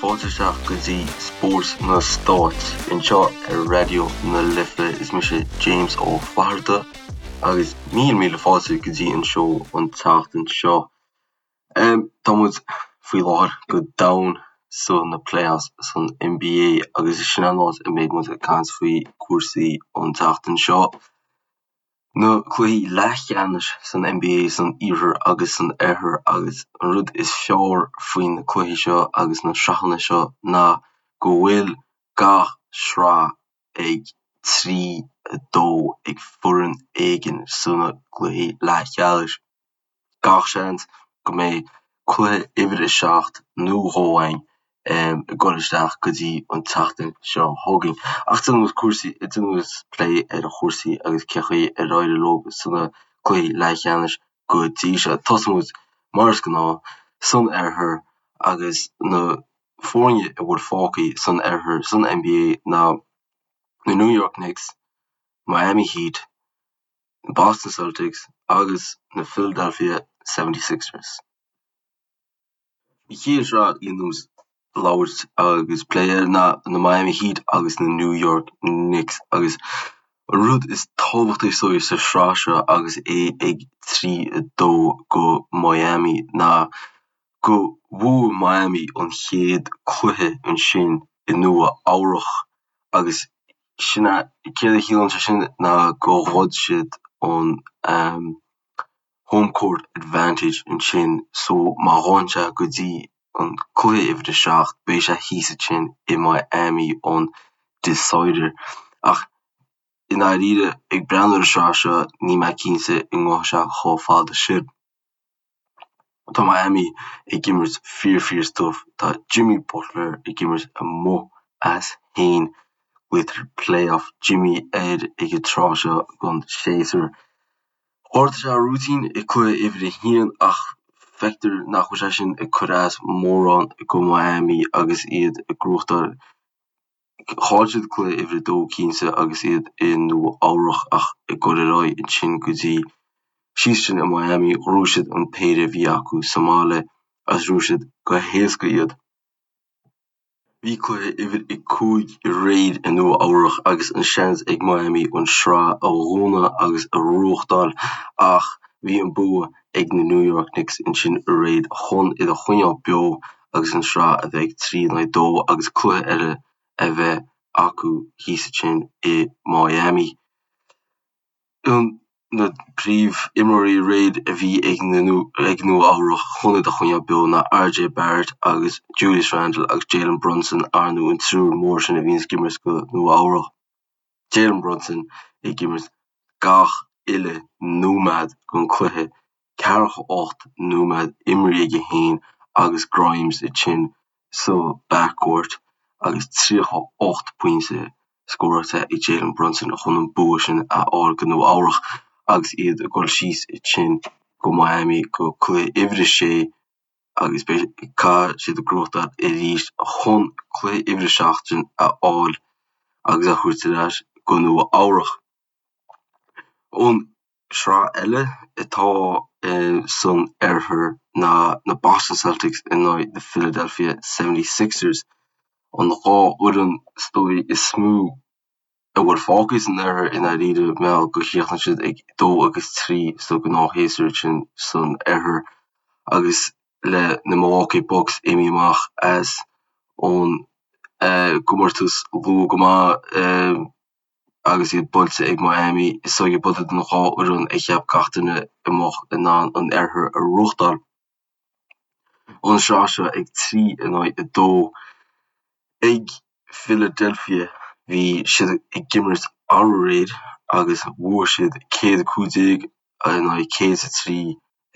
fáilte isteach go dtí Spórt na Stát anseo ar Raidió na Life. Is mise James Ó Flatharta agus míle míle fáilte go dtí an seó an tseachtain seo. Tá muid faoi láthair go domhain sa na playoffs san NBA agus sin an áit a mbeidh muid ag caint faoi cúrsaí an tseachtain seo. Na cluichí leathcheannais san NBA san Iarthar agus san Oirthear agus an rud is fearr faoi na cluichí seo agus na sraitheanna seo ná go bhfuil gach sraith ag 3, 2 ag foireann éigin sna cluichí leathcheannais. Gach seans go mbeidh cluiche uimhir a 7 nó dhó againn ag dul isteach go dtí an tseachtain seo chugainn. Ach déanfaidh muid cúrsaí, déanfaidh muid plé ar chúrsaí agus cé chaoi ar éirigh leo sna cluichí leathcheannais go dtí seo. Tosóidh muid mar is gnáth san oirthear agus na foirne a bhfuil fágtha san oirthear san NBA ná na New York Knicks, Miami Heat, na Boston Celtics agus na Philadelphia 76ers. An chéad sraith a dhéanfaidh muid labhairt agus plé air ná na Miami Heat agus na New York Knicks agus an rud is tábhachtaí is dóigh sa sraith seo agus é ag 3, 2 go Miami ná go bhuaigh Miami an chéad cluiche ansin i Nua Eabhrach agus sin é, céard a chiallaíonn sé sin ná go ghoid siad an home court advantage ansin so má ghabhann sé go dtí an cluiche uimhir a 7 beidh sé thíos ansin i Miami an decider. Ach i ndáiríre ag breathnú ar an sraith seo níl mé cinnte an ngabhfaidh sé chomh fada sin. Tá Miami ag imirt fíor fíor stuif. Tá Jimmy Butler ag imirt amuigh as féin. Glaoitear Playoff Jimmy air ag an tráth seo den séasúr. Ghortaigh sé a rúitín i cluiche uimhir a haon ach feictear nach bhfuil sé sin ag cur as mórán go Miami agus iad ag gnóthachtáil Chaill siad cluiche uimhir a dó cinnte agus iad i Nua Eabhrach ach ag dul ar aghaidh ansin go dtí síos sin i Miami ghnóthaigh siad an péire a bhí acu sa mbaile agus ghnóthaigh siad go héasca iad. Bhí cluiche uimhir a 5 aréir i Nua Eabhrach agus an seans ag Miami an sraith a dhúnadh agus a ghnóthachtáil ach bhí an bua ag na New York Knicks ansin aréir chun iad a choinneáil beo agus an sraith a bheith ag 3 in aghaidh 2 agus cluiche eile a bheith acu thíos ansin i Miami. Na príomhimreoirí aréir a bhí ag ag Nua Eabhrach chun iad a choinneáil beo ná RJ Barrett agus Julius Randle agus Jalen Brunson, ar ndóigh an triúr mór sin a bhíonns ag imirt go Nua Eabhrach. Jalen Brunson ag imirt gach uile nóiméad den cluiche, 48 nóiméad imeartha aige féin agus Grimes ansin sa backcourt agus 38 pointe scóráilte ag Jalen Brunson chun an bua sin a fháil go Nua Eabhrach agus iad ag dul síos ansin go Miami go cluiche uimhir a sé agus beidh caithfidh siad gnóthachtáil arís chun cluiche uimhir a 7 sin a fháil agus a thabhairt ar ais go Nua Eabhrach. An sraith eile atá san oirthear ná na Boston Celtics in aghaidh na Philadelphia 76ers, an dhá fhoireann is dóigh is mó a bhfuil fágtha san oirthear i ndáiríre mar gheall gur chríochnaigh siad ag 2 agus 3 sa ghnáthshéasúr sin san oirthear agus le na Milwaukee Bucks imithe amach as ón gcomórtas luath go maith agus iad buailte ag Miami is dóigh gurb iad an dhá fhoireann a cheap gach duine a mbeadh in ann an oirthear a ghnóthachtáil. An sraith seo ag 3 in aghaidh 2 ag Philadelphia. Bhí siad ag imirt aréir agus bhuaigh siad 115 in aghaidh 103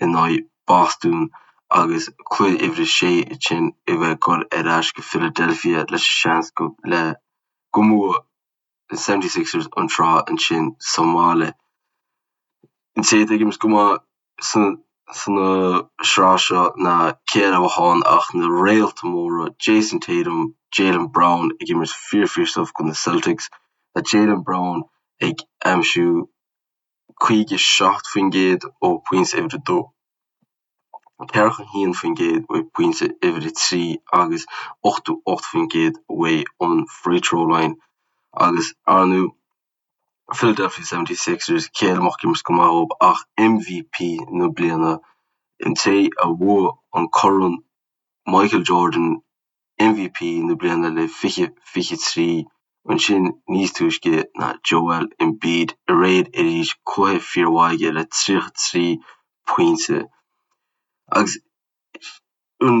in aghaidh Boston agus cluiche uimhir a sé ansin a bheith ag dul ar ais go Philadelphia leis an seans go le go mbuafaidh na 76ers an tsraith ansin sa mbaile. An té atá ag imirt go maith sa sraith seo ná cé eile a bheadh ann ach na réalta móra Jayson Tatum, Jaylen Brown ag imirt fíor fíor stuif do na Celtics. Tá Jaylen Brown ag aimsiú 57% ó phointe uimhir a dó. 41% uaidh pointe uimhir 3 agus 88% uaidh an free throw line agus ar ndú Philadelphia 76ers cé eile a mbeadh ag imirt go maith dhób ach MVP na bliana, an té a bhuaigh an corn Michael Jordan MVP na bliana le 2023 ansin níos túisce ná Joel Embiid aréir arís cluiche fíormhaith aige le 33 pointe. Agus an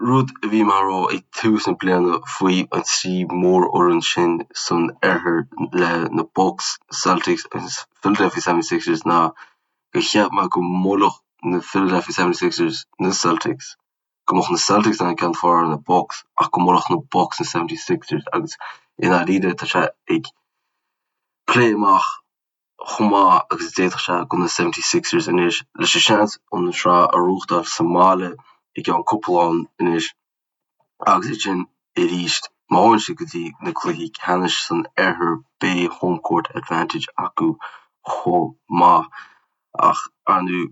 rud a bhí mé a rá ag tús na bliana faoi an trí mhórfhoireann sin san oirthear le na Bucks, Celtics agus Philadelphia 76ers ná gur cheap mé go mbuailfeadh na Philadelphia 76ers na Celtics. go mbeadh na Celtics in ann ceann is fearr ar na Bucks ach go mbuailfeadh na Bucks na 76ers agus i ndáiríre tá sé ag plé amach chomh maith agus a d'fhéadfadh sé do na 76ers anois leis an seans an sraith a ghnóthachtáil sa mbaile i gceann cúpla lá anois agus ansin arís má théann siad go dtí na cluichí ceannais san oirthear beidh home court advantage acu chomh maith ach ar ndóigh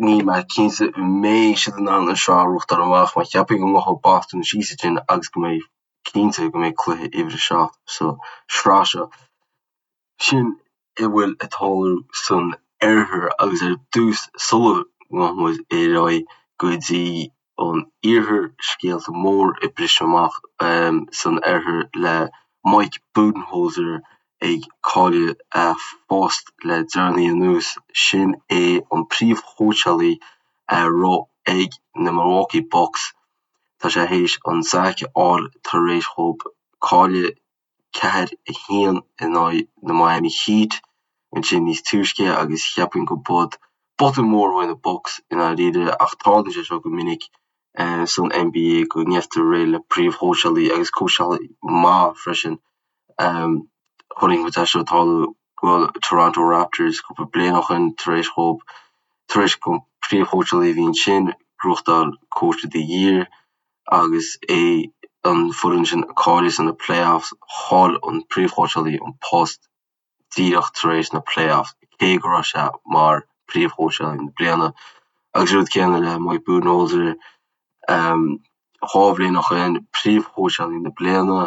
Níl mé cinnte an mbeidh siad in ann an sraith a ghnóthachtáil amach mar cheapfainn go ngabhfaidh Boston síos ansin agus go mbeidh cinnte go mbeidh cluiche uimhir a 7 sa sraith seo. Sin a bhfuil ag tarlú san oirthear agus ar dtús sula ngabhfaidh muid ar aghaidh go dtí an iarthar, scéalta mór ag briseadh amach san oirthear le Mike Budenholzer ag cailleadh a phost le deireanaí anuas. Sin é an príomhchóitseálaí a raibh ag na Milwaukee Bucks. Tá sé théis an sack a fháil tar éis dhób cailleadh 4, 1 in aghaidh na Miami Heat ansin níos túisce agus cheapfainn go b'in botún mór uaidh na Bucks i ndáiríre ach tarlaíonn sé seo go minic san NBA go ngeibhtear réidh le príomhchóitseálaí agus cóitseálaí maith freisin. Chonaic muid é seo ag tarlú go Toronto Raptors cúpla bliain ó shin tar éis dhób tar éis don príomhchóitseálaí a bhí ansin gnóthachtáil Coach of the Year agus é an foireann sin ag cailleadh sna playoffs chaill an príomhchóitseálaí an post díreach tar éis na playoffs cé go raibh sé mar príomhchóitseálaí na bliana. Agus an rud céanna le Mike Budenholzer, 2 bhliain ó shin, príomhchóitseálaí na bliana,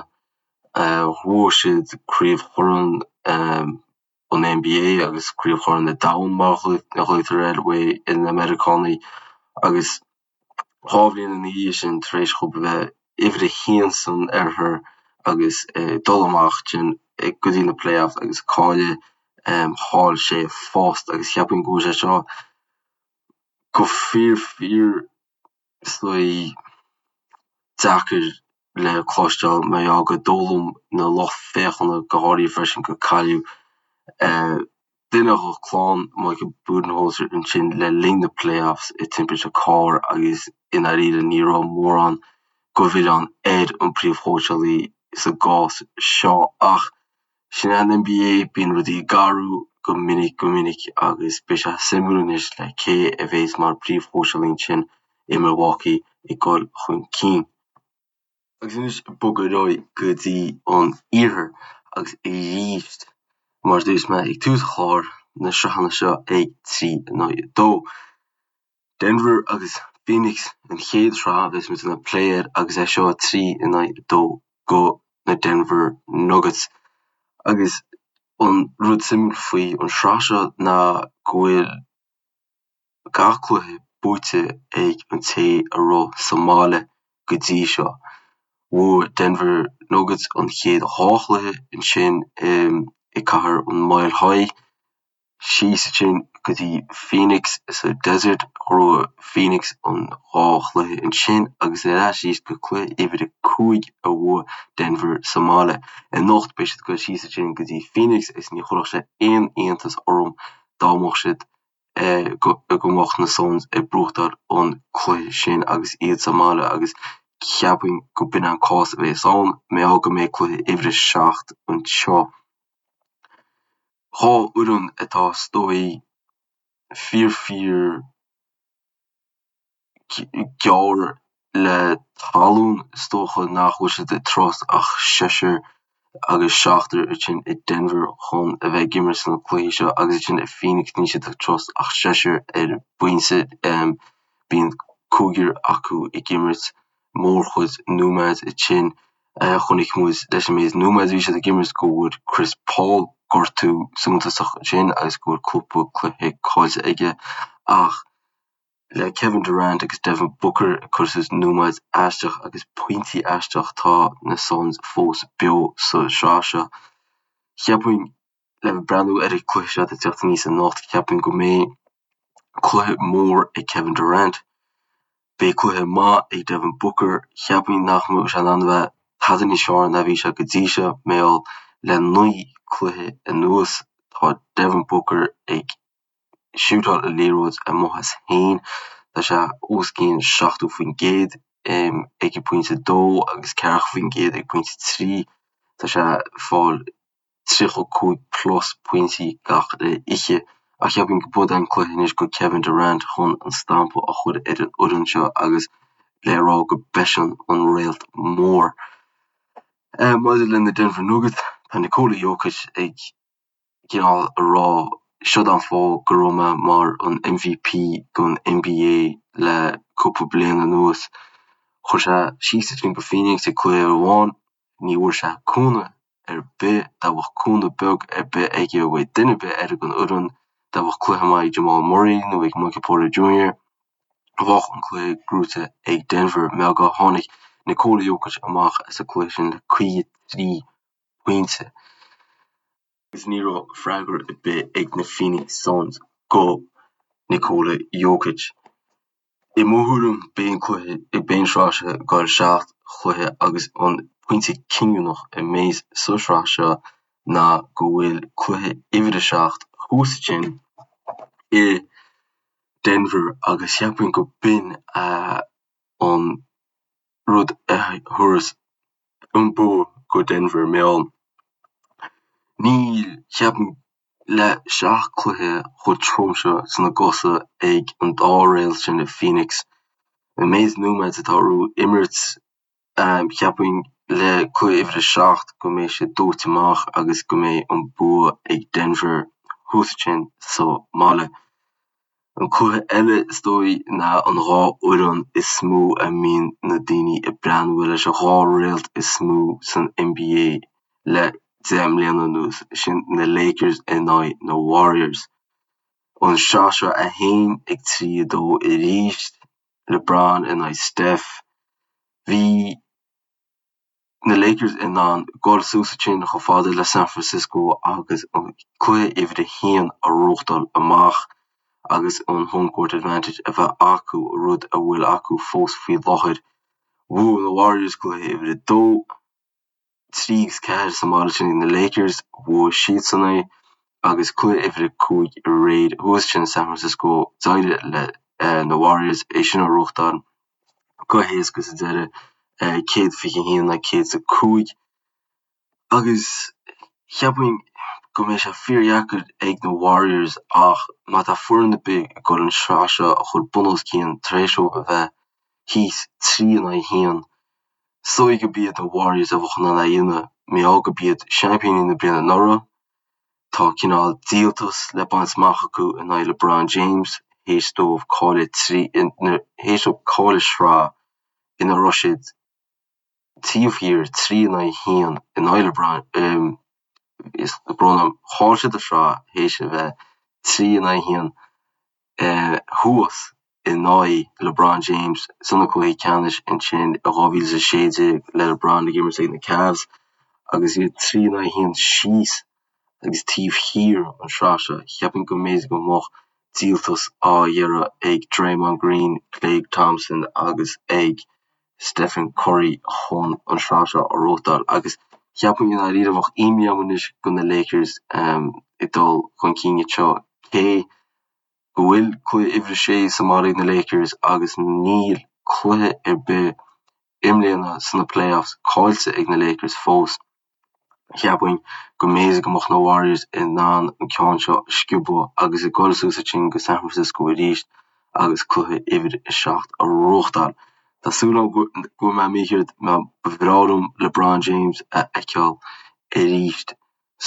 bhuaigh siad Craobh Chorn an NBA agus Craobh Chorn an Domhain mar a ghlaotar air uaidh na Meiriceánaigh agus 2 bhliain ina dhiaidh sin tar éis dhób a bheith uimhir a haon san oirthear agus dul amach ansin go dtí na playoffs agus cailleadh, chaill sé a phost agus cheapfainn go bhfuil sé seo go fíor fíor is dóigh deacair le cloisteáil mar gheall gur dóigh liom na lucht féachana go háirithe freisin gur cailleadh duine de chlann Michael Budenholzer ansin le linn na playoffs i timpiste cairr agus i ndáiríre ní raibh mórán de mhilleán ar an bpríomhchóitseálaí sa gcás seo ach Sin é an NBA, bíonn rudaí ag athrú go minic go minic agus beidh sé suimiúil anois le cé a bheas mar phríomhchóitseálaí ansin i Milwaukee ag dul chun cinn. Agus anois ag bogadh ar aghaidh go dtí an iarthar agus arís mar a dúirt mé ag tús an chláir, na sraitheanna seo ag 3 in aghaidh 2. Denver agus Phoenix an chéad sraith a bheas muid ag plé air agus é seo 3 in aghaidh 2 go na Denver Nuggets. Agus an rud suimiúil faoi an sraith seo ná go bhfuil gach cluiche buaite ag an té a raibh sa mbaile go dtí seo. Bhuaigh Denver Nuggets an chéad dhá chluiche ansin i cathair an Mile High. Síos ansin go dtí Phoenix sa Desert, ghnóthaigh Phoenix an dá chluiche ansin agus ar ais arís go cluiche uimhir a 5 a bhuaigh Denver sa mbaile. Anocht beidh siad ag dul síos ansin go dtí Phoenix agus ní chuirfeadh sé aon iontas orm dá mbeadh siad go mbeadh na Suns ag buachtáil an cluiche sin agus iad sa mbaile agus cheapfainn go b'in an cás a bheas ann, mar gheall go mbeidh cluiche uimhir a 7 anseo. 2 fhoireann atá is dóigh fíor fíor gearr le talún is dócha nach bhfuil siad ag trust ach seisear agus seachtar ansin i Denver chun a bheith ag imirt sna cluichí seo agus ansin i Phoenix níl siad ag trust ach seisear ar binse. Bíonn cúigear acu ag imirt mórchuid nóiméad ansin. Chonaic muid leis an méid nóiméad a bhí siad ag imirt go bhfuair Chris Paul gortú suntasach ansin agus go bhfuil cúpla cluiche caillte aige ach le Kevin Durant agus Devin Booker ag cur suas nóiméad aisteach agus pointí aisteach tá na Suns fós beo sa sraith seo. Cheapfainn le breathnú ar an cluiche seo atá ag teacht aníos anocht, ceapaim go mbeidh cluiche mór ag Kevin Durant. Beidh cluiche maith ag Devin Booker. Cheapfainn nach mbeadh sé in ann a bheith tada níos fearr ná bhí sé go dtí seo, mar gheall le 9 cluiche anuas tá Devin Booker ag siútáil an liathróid amuigh as féin. Tá sé os cionn 70% ag an pointe 2 agus 40% ag pointe 3. Tá sé ag fáil 35 plus pointí gach oíche ach cheapfainn go b'é an cluiche anois go Kevin Durant chun an stampa a chur ar an fhoireann seo agus le rá go b'eisean an réalt mór. Maidir le na Denver Nuggets, tá Nikola Jokic ag cineál a rá siod an fáth go raibh mé mar an MVP don NBA le cúpla bliain anuas. Chuir sé síos ansin go Phoenix ag cluiche amháin, ní bhfuair sé cúnamh ar bith, dá bheadh cúnamh beag ar bith aige uaidh duine ar bith eile den fhoireann, dá bheadh cluiche maith ag Jamal Murray nó ag Michael Porter Jr. bheadh an cluiche gnóite ag Denver. Mar go tháinig Nikola Jokic amach as an cluiche sin le 53 pointe agus ní raibh freagra ar bith ag na Phoenix Suns go Nikola Jokic. I mo thuairim, beidh an cluiche, beidh an sraith seo ag dul seacht chluiche agus an pointe cinniúnach a mbeidh sa sraith seo ná go bhfuil cluiche uimhir a 7 thuas ansin i Denver agus cheapfainn go b'in an rud a thabharfas an bua go Denver mar gheall níl, cheapfainn, le seacht cluiche chomh trom seo sna gcosa ag an dá réalt sin i Phoenix, an méid nóiméad atá orthu imirt, cheapfainn le cluiche uimhir a 7 go mbeidh siad dóite amach agus go mbeidh an bua ag Denver thuas ansin sa mbaile. An cluiche eile is dóigh ná an dhá fhoireann is mó a mbíonn na daoine ag breathnú leis an dhá réalt is mó san NBA le 10 mbliana anuas, sin na Lakers in aghaidh na Warriors. An sraith seo é féin ag 3-2 arís, LeBron in aghaidh Steph. Bhí. na Lakers in ann dul suas ansin chomh fada le San Francisco agus an cluiche uimhir a haon a ghnóthachtáil amach agus an home court advantage a bheith acu, rud a bhfuil acu fós faoi láthair. Bhuaigh na Warriors cluiche uimhir a dó, 3 agus 4 sa mbaile sin ag na Lakers, bhuaigh siadsan é agus cluiche uimhir a 5 aréir thuas ansin i San Francisco, d'éirigh le na Warriors é sin a ghnóthachtáil. go héasca sa deireadh, 121 le 105 agus cheapfainn go mbeidh sé fíordheacair ag na Warriors ach má tá foireann ar bith ag dul an sraith seo a chur bun os cionn tar éis dóibh a bheith thíos 3 in aghaidh 1, is dóigh go b'iad na Warriors a bheadh in ann é a dhéanamh mar gheall go b'iad seaimpíní na bliana anuraidh. Tá cineál díoltas le baint amach acu in aghaidh LeBron James théis dóibh cailleadh théis dóibh cailleadh sraith ina raibh siad taobh thiar 3 in aghaidh 1 in aghaidh LeBron is brón orm chaill siad an sraith théis a bheith 3 in aghaidh 1 thuas in aghaidh LeBron James sna cluichí ceannais ansin i 2016 le LeBron ag imirt ag na Cavs agus iad 3 in aghaidh 1 síos agus taobh thiar an sraith seo. Cheapfainn go mb'fhéidir go mbeadh díoltas á iarraidh ag Draymond Green, Klay Thompson agus ag Stephen Curry chun an sraith seo a ghnóthachtáil agus cheapfainn i ndáiríre bheadh imní orm anois go na Lakers ag dul chun cinn anseo cé go bhfuil cluiche uimhir a sé sa mbaile ag na Lakers agus níl cluiche ar bith i mbliana sna playoffs caillte ag na Lakers fós. Cheapfainn go mb'fhéidir go mbeadh na Warriors in ann an ceann seo a sciobadh agus ag dul suas ansin go San Francisco arís agus cluiche uimhir a 7 a ghnóthachtáil. Tá súil agam go bhfuil mé mícheart mar ba bhreá liom LeBron James a fheiceáil arís.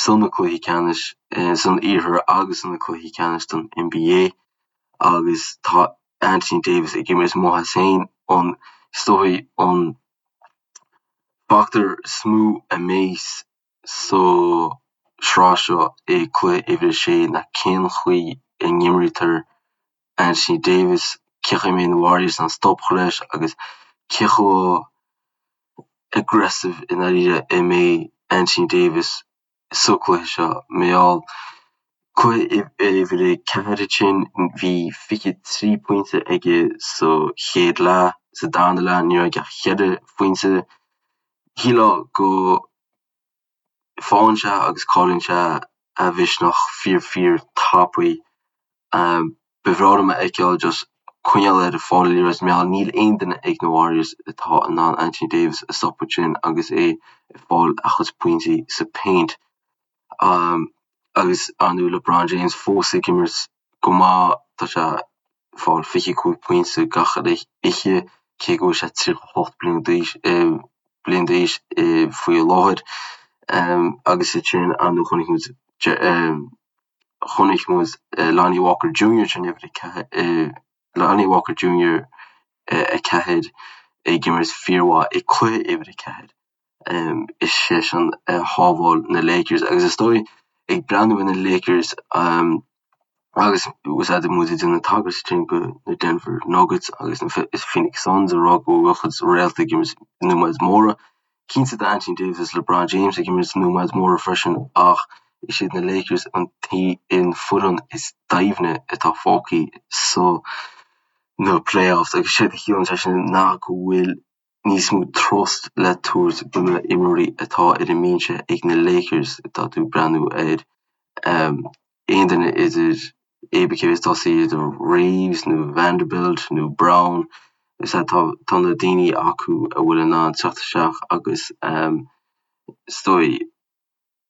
sna cluichí ceannais san iarthar agus sna cluichí ceannais don NBA agus tá. Anthony Davis ag imirt amuigh as féin an is dóigh an factor is mó a mbeidh sa sraith seo i cluiche uimhir a sé ná cén chaoi a n-imrítear Anthony Davis, cén chaoi a mbeidh na Warriors in ann stop a chur leis agus cé chomh aggressive i ndáiríre a mbeidh Anthony Davis sa cluiche seo. Mar gheall cluiche uimhir a 4 ansin bhí 23 pointe aige sa chéad leath, sa darna leath ní raibh aige ach 4 phointe. Shílfeá go Faigheann sé agus cailleann sé a mhisneach fíor fíor tapaidh. Ba bhreá liom a fheiceáil just coinneáil air ag fáil an liathróid mar gheall níl aon duine ag na Warriors atá in ann Anthony Davis a stopadh ansin agus é ag fáil a chuid pointí sa paint. Agus ar ndóigh LeBron James fós ag imirt go maith, tá sé ag fáil 25 pointe gach uile oíche cé go bhfuil sé 38 bliain d'aois bliain d'aois faoi láthair. Agus ansin ar ndóigh chonaic muid chonaic muid Lonnie Walker Jr. sin uimhir a Lonnie Walker Jr. 4 ag imirt fíormhaith i cluiche uimhir 4. Is seisean a shábháil na Lakers agus is dóigh ag breathnú ar na Lakers agus úsáideann muid ag déanamh tagairt ansin go na Denver Nuggets agus na Phoenix Suns ag rá go bhfuil a gcuid réalta ag imirt nóiméid móra. Cinnte tá Anthony Davis agus LeBron James ag imirt nóiméid móra freisin ach is iad na Lakers an an foireann is doimhne atá fágtha sa na playoffs agus séard a chiallaíonn sé sin ná go bhfuil níos mó trust le tabhairt do na imreoirí atá ar an mbinse ag na Lakers. Tá tú ag breathnú ar aon duine idir cibé cé is tosaí idir Reaves nó Vanderbilt nó Brown is ea tá tá na daoine acu a bhfuil in ann teacht isteach agus is dóigh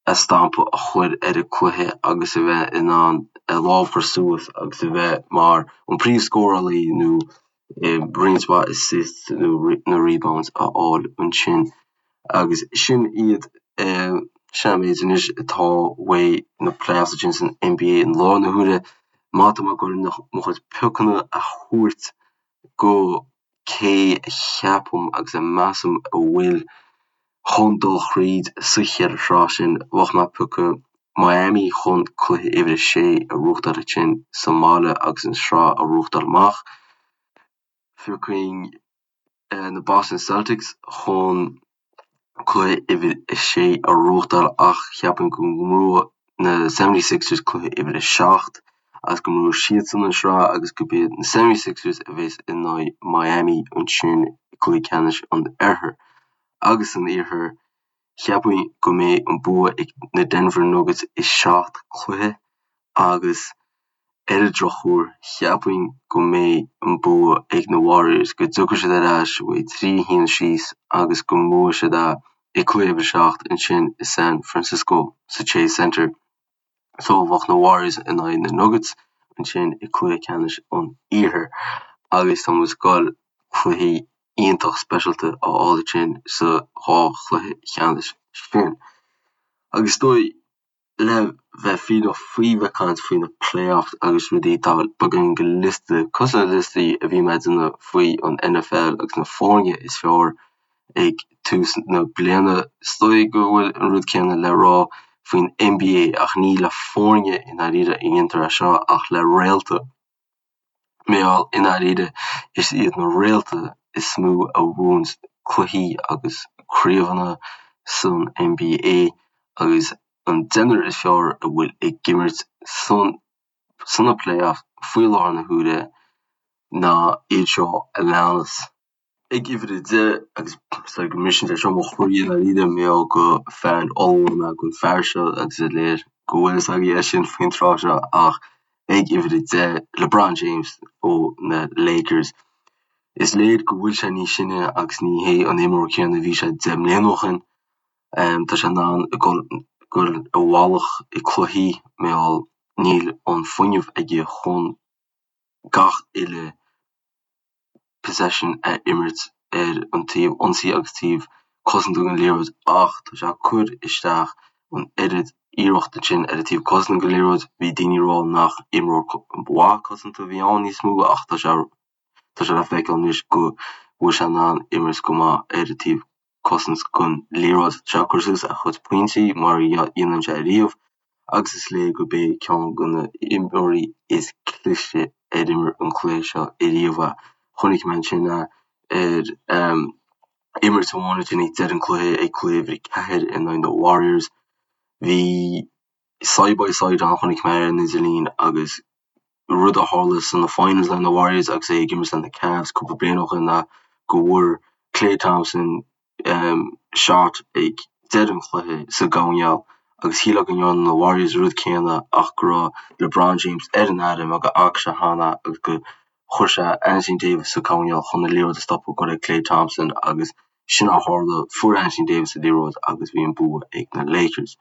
a stampa a chur ar an cluiche agus a bheith in ann a lámh a chur suas agus a bheith mar an príomhscórálaí nó roinnt mhaith assists nó na rebounds a fháil ansin. Agus sin iad sin an méid anois atá uaidh na playoffs ansin san NBA i láthair na huaire. Má tá mé ag dul mo chuid piocanna a thabhairt go cé a cheapaim agus a measaim a bhfuil chun dul thríd sa cheithre shraith sin, bheadh mé ag piocadh Miami chun cluiche uimhir a sé a bhuachtáil ansin sa mbaile agus an sraith a bhuachtáil amach. Phiocfainn na Boston Celtics chun cluiche uimhir a sé a bhuachtáil ach cheapfainn go mbuafaidh na 76ers cluiche uimhir a 7 agus go mbuafaidh siadsan an sraith agus gurb iad na 76ers a bheas in aghaidh Miami ansin i gcluiche ceannais an Oirthir. Agus san Iarthar, cheapfainn go mbeidh an bua ag na Denver Nuggets i seacht cluiche agus Ar an drochuair, cheapfainn go mbeidh an bua ag na Warriors, go dtiocfaidh siad ar ais uaidh 3-1 síos agus go mbuafaidh siad é i cluiche uimhir 7 ansin i San Francisco sa Chase Center. So bheadh na Warriors in aghaidh na Nuggets ansin i cluiche ceannais an Iarthair agus tá muid ag goil cluichí iontach speisialta a fháil ansin sa dhá chluiche cheannais sin. Agus is dóigh Le bheith fírinneach faoi bheith ag caint faoi na playoffs agus rudaí, tá beagáinín de liosta, cosúil le liostaí a bhí mé ag déanamh faoi an NFL agus na foirne is fearr ag tús na bliana. Is dóigh go bhfuil an rud céanna le rá faoin NBA ach ní le foirne i ndáiríre a dhéantar é seo ach le réalta. Mar gheall, i ndáiríre, is iad na réalta is mó a bhuann cluichí agus craobhanna san NBA agus an deichniúr is fearr a bhfuil ag imirt san sna playoffs faoi láthair na huaire ná iad seo a leanas. Ag uimhir 10, agus is dóigh go mbriseann sé seo mo chroí i ndáiríre, mar gheall gur fan ollmhór mé den fear seo agus is léir go bhfuil fhios agaibh é sin faoin tráth seo ach ag uimhir 10, LeBron James ó na Lakers. Is léir go bhfuil sé níos sine agus ní hé an imreoir céanna a bhí sé 10 mbliana ó shin. Tá sé in ann dul i bhfalach i cluichí mar gheall níl an fuinneamh aige chun gach uile possession a imirt ar an taobh ionsaí agus taobh cosanta den liathróid ach tá sé ag cur isteach an oiread iarracht ansin ar an taobh cosanta den liathróid. Bhí daoine ag rá nach imreoir mhaith cosanta a bhí ann níos mó ach tá sé. Tá sé le feiceáil anois go bhfuil sé in ann imirt go maith ar an taobh cosaint den liathróid. Tá sé ag cur suas a chuid pointí mar a dhéanann sé riamh agus is léir gurb é ceann de na imreoirí is cliste ar imir an cluiche seo ariamh é. Chonaic mé ansin é ar imirt amháin ansin ag deireadh an cluiche ag cluiche uimhir 4 in aghaidh na Warriors. Bhí side by side ann chonaic mé ar an idirlíon agus rud a tharla sna finals le na Warriors agus é ag imirt le na Cavs cúpla bliain ó shin ná go bhfuair Klay Thompson shot ag deireadh an chluiche sa gcoirnéal agus shílfeá go ndearna na Warriors an rud céanna ach go raibh LeBron James ar an aire mar go bhfaca sé cheana agus go chuir sé Anthony Davis sa choirnéal chun an liathróid a stopadh go raibh Klay Thompson agus sin a tharla, fuair Anthony Davis an liathróid agus bhí an bua ag na Lakers.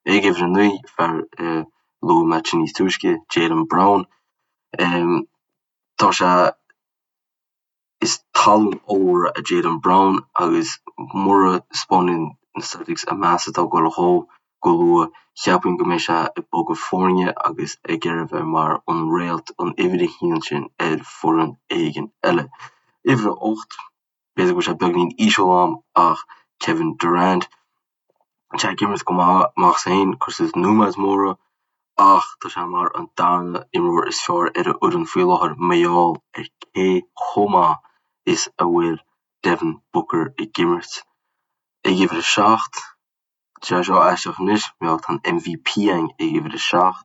Ag uimhir a 9, fear a luaigh mé níos túisce, Jaylen Brown. Tá sé, is tallann ollmhór é Jaylen Brown agus mura 'spáineann na Celtics an meas atá ag dul dhó go luath, cheapfainn go mbeidh sé ag bogadh foirne agus ag iarraidh a bheith mar an réalt, an uimhir a haon sin ar foireann éigin eile. Uimhir a 8. B'fhéidir go bhfuil sé beagnín íseal a'm ach Kevin Durant, tá sé ag imirt go maith amach as féin, cur suas nóiméid móra ach tá sé mar an darna imreoir is fearr ar an fhoireann faoi láthair mar gheall ar cé chomh maith is a bhfuil Devin Booker ag imirt. Ag uimhir a 7, tá sé seo aisteach anois, mar gheall tá an MVP a'inn ag uimhir a 7.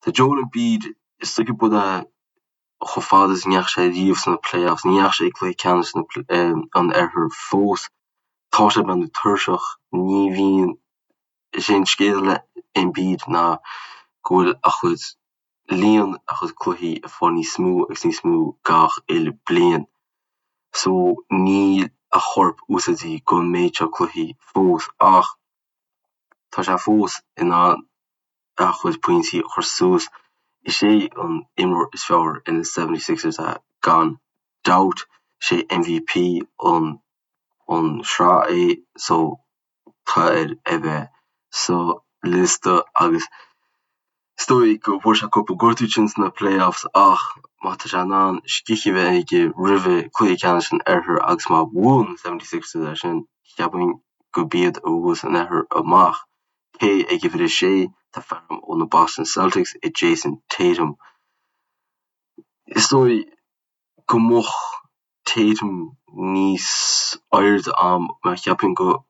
Tá Joel Embiid, is dóigh gurb é chomh fada is a ndeachaigh sé riamh sna playoffs, ní dheachaigh sé ag cluiche ceannais an Oirthir fós. Tá sé ag breathnú tuirseach, ní bhíonn, is é an scéal le Embiid ná go bhfuil a chuid, líon a chuid cluichí ag fáil níos mó agus níos mó gach uile bliain. So níl a chorp úsáidte don méid seo cluichí fós ach tá sé fós in ann a chuid pointí a chur suas. Is é an imreoir is fearr ar na 76ers é gan dabht. Is é MVP an an sraith é so tá air a bheith sa liosta agus is dóigh go bhfuair sé cúpla gortú ansin sna playoffs ach má tá sé in ann scíth a bheith aige roimhe cluiche ceannais an Oirthir agus má bhuann na 76ers é sin, cheapfainn gurb iad a bhuas an Oirthear amach. Cé ag uimhir a sé, tá fear ó na Boston Celtics i Jayson Tatum. Is dóigh go mbeadh Tatum níos airde a'm mar cheapfainn go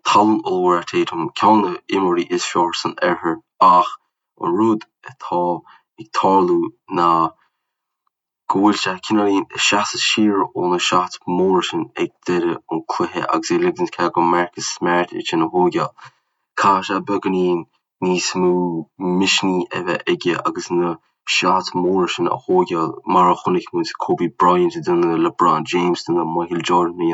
tallann ollmhór é Tatum, ceann de na imreoirí is fearr san oirthear ach an rud atá ag tarlú ná go bhfuil sé cineáilín ag seasamh siar ó na shots móra sin ag deireadh an cluiche agus é ag ligint cead go Marcus Smart iad sin a thóigeáil. Caithfidh sé beagáinín níos mó misnigh a bheith aige agus na shots móra sin a thóigeáil mar a chonaic muid Kobe Bryant ag déanamh, LeBron James ag déanamh, Michael Jordan a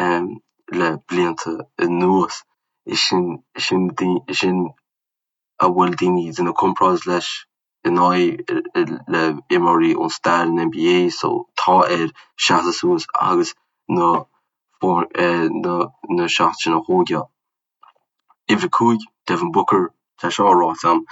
dhéanamh le blianta anuas. Is sin, sin, sin a bhfuil daoine ag déanamh comparáid leis in aghaidh le imreoirí ón stair an NBA so tá air seasamh suas agus na na na shots sin a thóigeáil. Uimhir 5, Devin Booker, tá seo ráite a'm,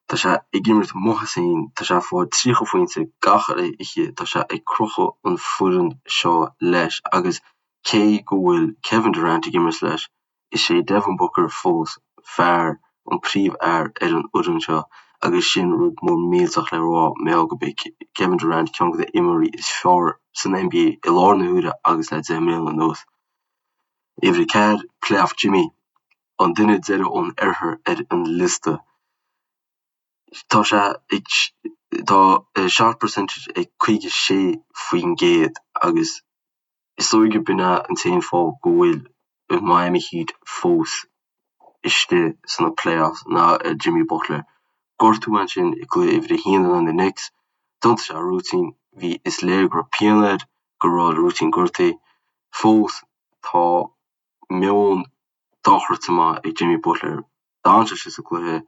tá sé ag imirt maith as féin, tá sé ag fáil 30 phointe gach uile oíche, tá sé ag crochadh an foireann seo leis agus cé go bhfuil Kevin Durant ag imirt leis, Is é Devin Booker fós fear an príomhfhear ar an fhoireann seo agus sin rud mór millteach le rá mar gheall gurb é Kevin Durant ceann de na imreoirí is fearr san NBA i láthair na huaire agus le 10 mbliana anuas. Uimhir 4, Playoff Jimmy, an duine deiridh ón oirthear ar an liosta. Tá sé ag tá a shot percentage ag 56% agus Is dóigh gurb in é an t-aon fáth go bhfuil Miami Heat fós istigh sna playoffs ná Jimmy Butler. Gortú ansin i gcluiche uimhir a haon in aghaidh na Knicks. D'iontaigh sé a rúitín. Bhí, is léir go raibh pian air, go raibh a rúitín gortaithe. Fós tá meon dochreidte maith ag Jimmy Butler. D'fhan sé istigh sa gcluiche.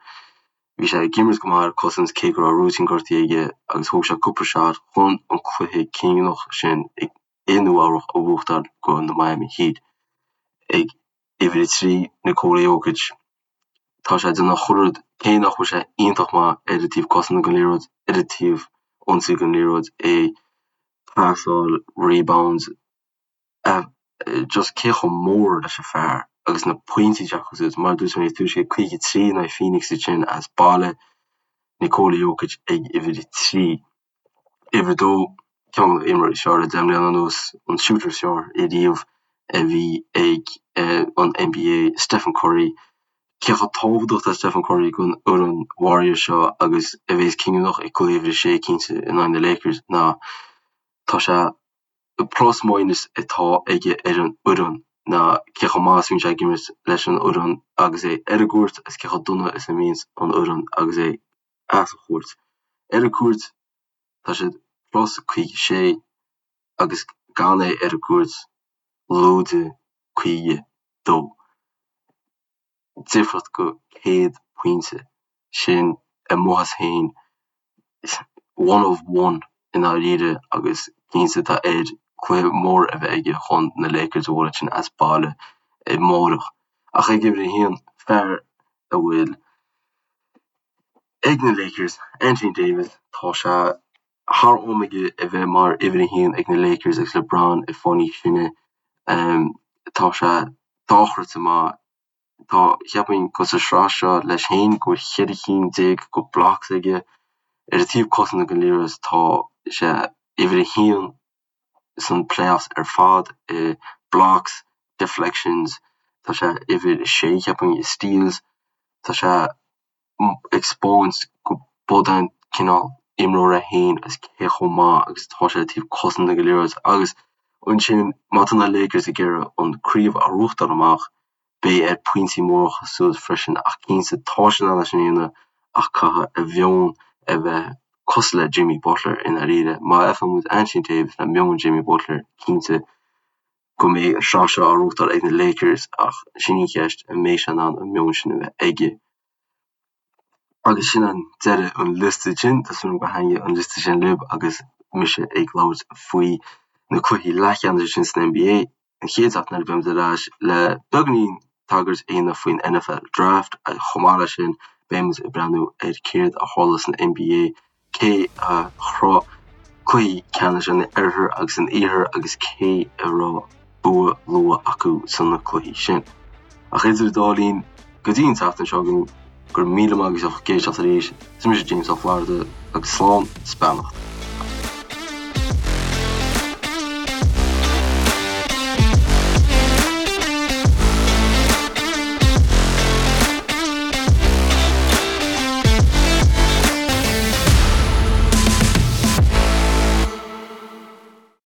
Bhí sé ag imirt go maith ar cosaint cé go raibh rúitín gortaithe aige agus thóg sé cúpla shot chun an cluiche cinniúnach sin i Nua Eabhrach a bhuachtáil go na Miami Heat. Ag uimhir 3, Nikola Jokic. Tá sé ag déanamh chuile rud, cé nach bhfuil sé iontach maith ar an taobh cosanta den liathróid, ar an taobh ionsaí den liathróid é. Pasáil, rebounds, just cé chomh mór leis an fear agus na pointí atá acu suas. Mar a dúirt mé níos túisce, 53 in aghaidh Phoenix ansin as baile, Nikola Jokic ag uimhir 3. Uimhir 2, ceann de na himreoirí is fearr le 10 mbliana anuas, an shooter is fearr ariamh a bhí ag an NBA, Stephen Curry. Cé chomh tábhachtach atá Stephen Curry don fhoireann Warriors seo agus a bheas cinniúnach ag cluiche uimhir 6 cinnte in aghaidh na Lakers ná tá sé plus minus atá aige ar an fhoireann ná cé chomh maith is a bhíonn sé ag imirt leis an fhoireann agus é ar an gcúirt agus cé chomh dona is a bhíonns an fhoireann agus é as an chúirt. Ar an gcúirt tá siad plus 56 agus gan é ar an gcúirt lúide 52. Difríocht go 100 pointe sin amuigh as féin one of one i ndáiríre agus cinnte tá air cluiche mór a bheith aige chun na Lakers a bhualadh sin as baile amárach. Ach ag uimhir a haon, fear a bhfuil ag na Lakers, Anthony Davis, tá sé thar am aige a bheith mar uimhir a haon ag na Lakers agus LeBron ag fáil níos sine. Tá sé dochreidte maith. Tá, cheapfainn, go sa sraith seo leis féin go bhfuil 14 cinn de blocks aige. Ar an taobh cosanta den liathróid tá sé uimhir a haon san playoffs ar fad i blocks, deflections, tá sé uimhir a sé cheapfainn i steals, tá sé ag spáint go bud é an cineál imreoir é féin agus cé chomh maith agus atá sé ar taobh cosanta den liathróid agus ansin má tá na Lakers ag iarraidh an craobh a ghnóthachtáil amach beidh air pointí móra a chur suas freisin ach cinnte tá sé in ann é sin a dhéanamh ach caithfidh a mheon a bheith cosúil le Jimmy Butler i ndáiríre. Má fheiceann muid Anthony Davis le meon Jimmy Butler cinnte go mbeidh an sraith seo á ghnóthachtáil ag na Lakers ach sin í an cheist, an mbeidh sé in ann an meon sin a bheith aige? Agus sin an deireadh an liosta sin, tá súil agam gur thaitnigh an liosta sin libh agus mise ag labhairt faoi na cluichí leathcheannais sin san NBA. An chéad seachtain eile beimid ar ais le beagáinín tagairt a dhéanamh faoin NFL Draft agus chomh maith leis sin beimid ag breathnú ar céard a tharla san NBA cé a shroich cluichí ceannais an Oirthir agus an Iarthair agus cé a raibh bua luath acu sna cluichí sin. Ach idir an dá linn, go dtí an tseachtain seo chugainn, go raibh míle maith agaibh as ucht éisteacht arís, is mise James Ó Flatharta agus slán 's beannacht.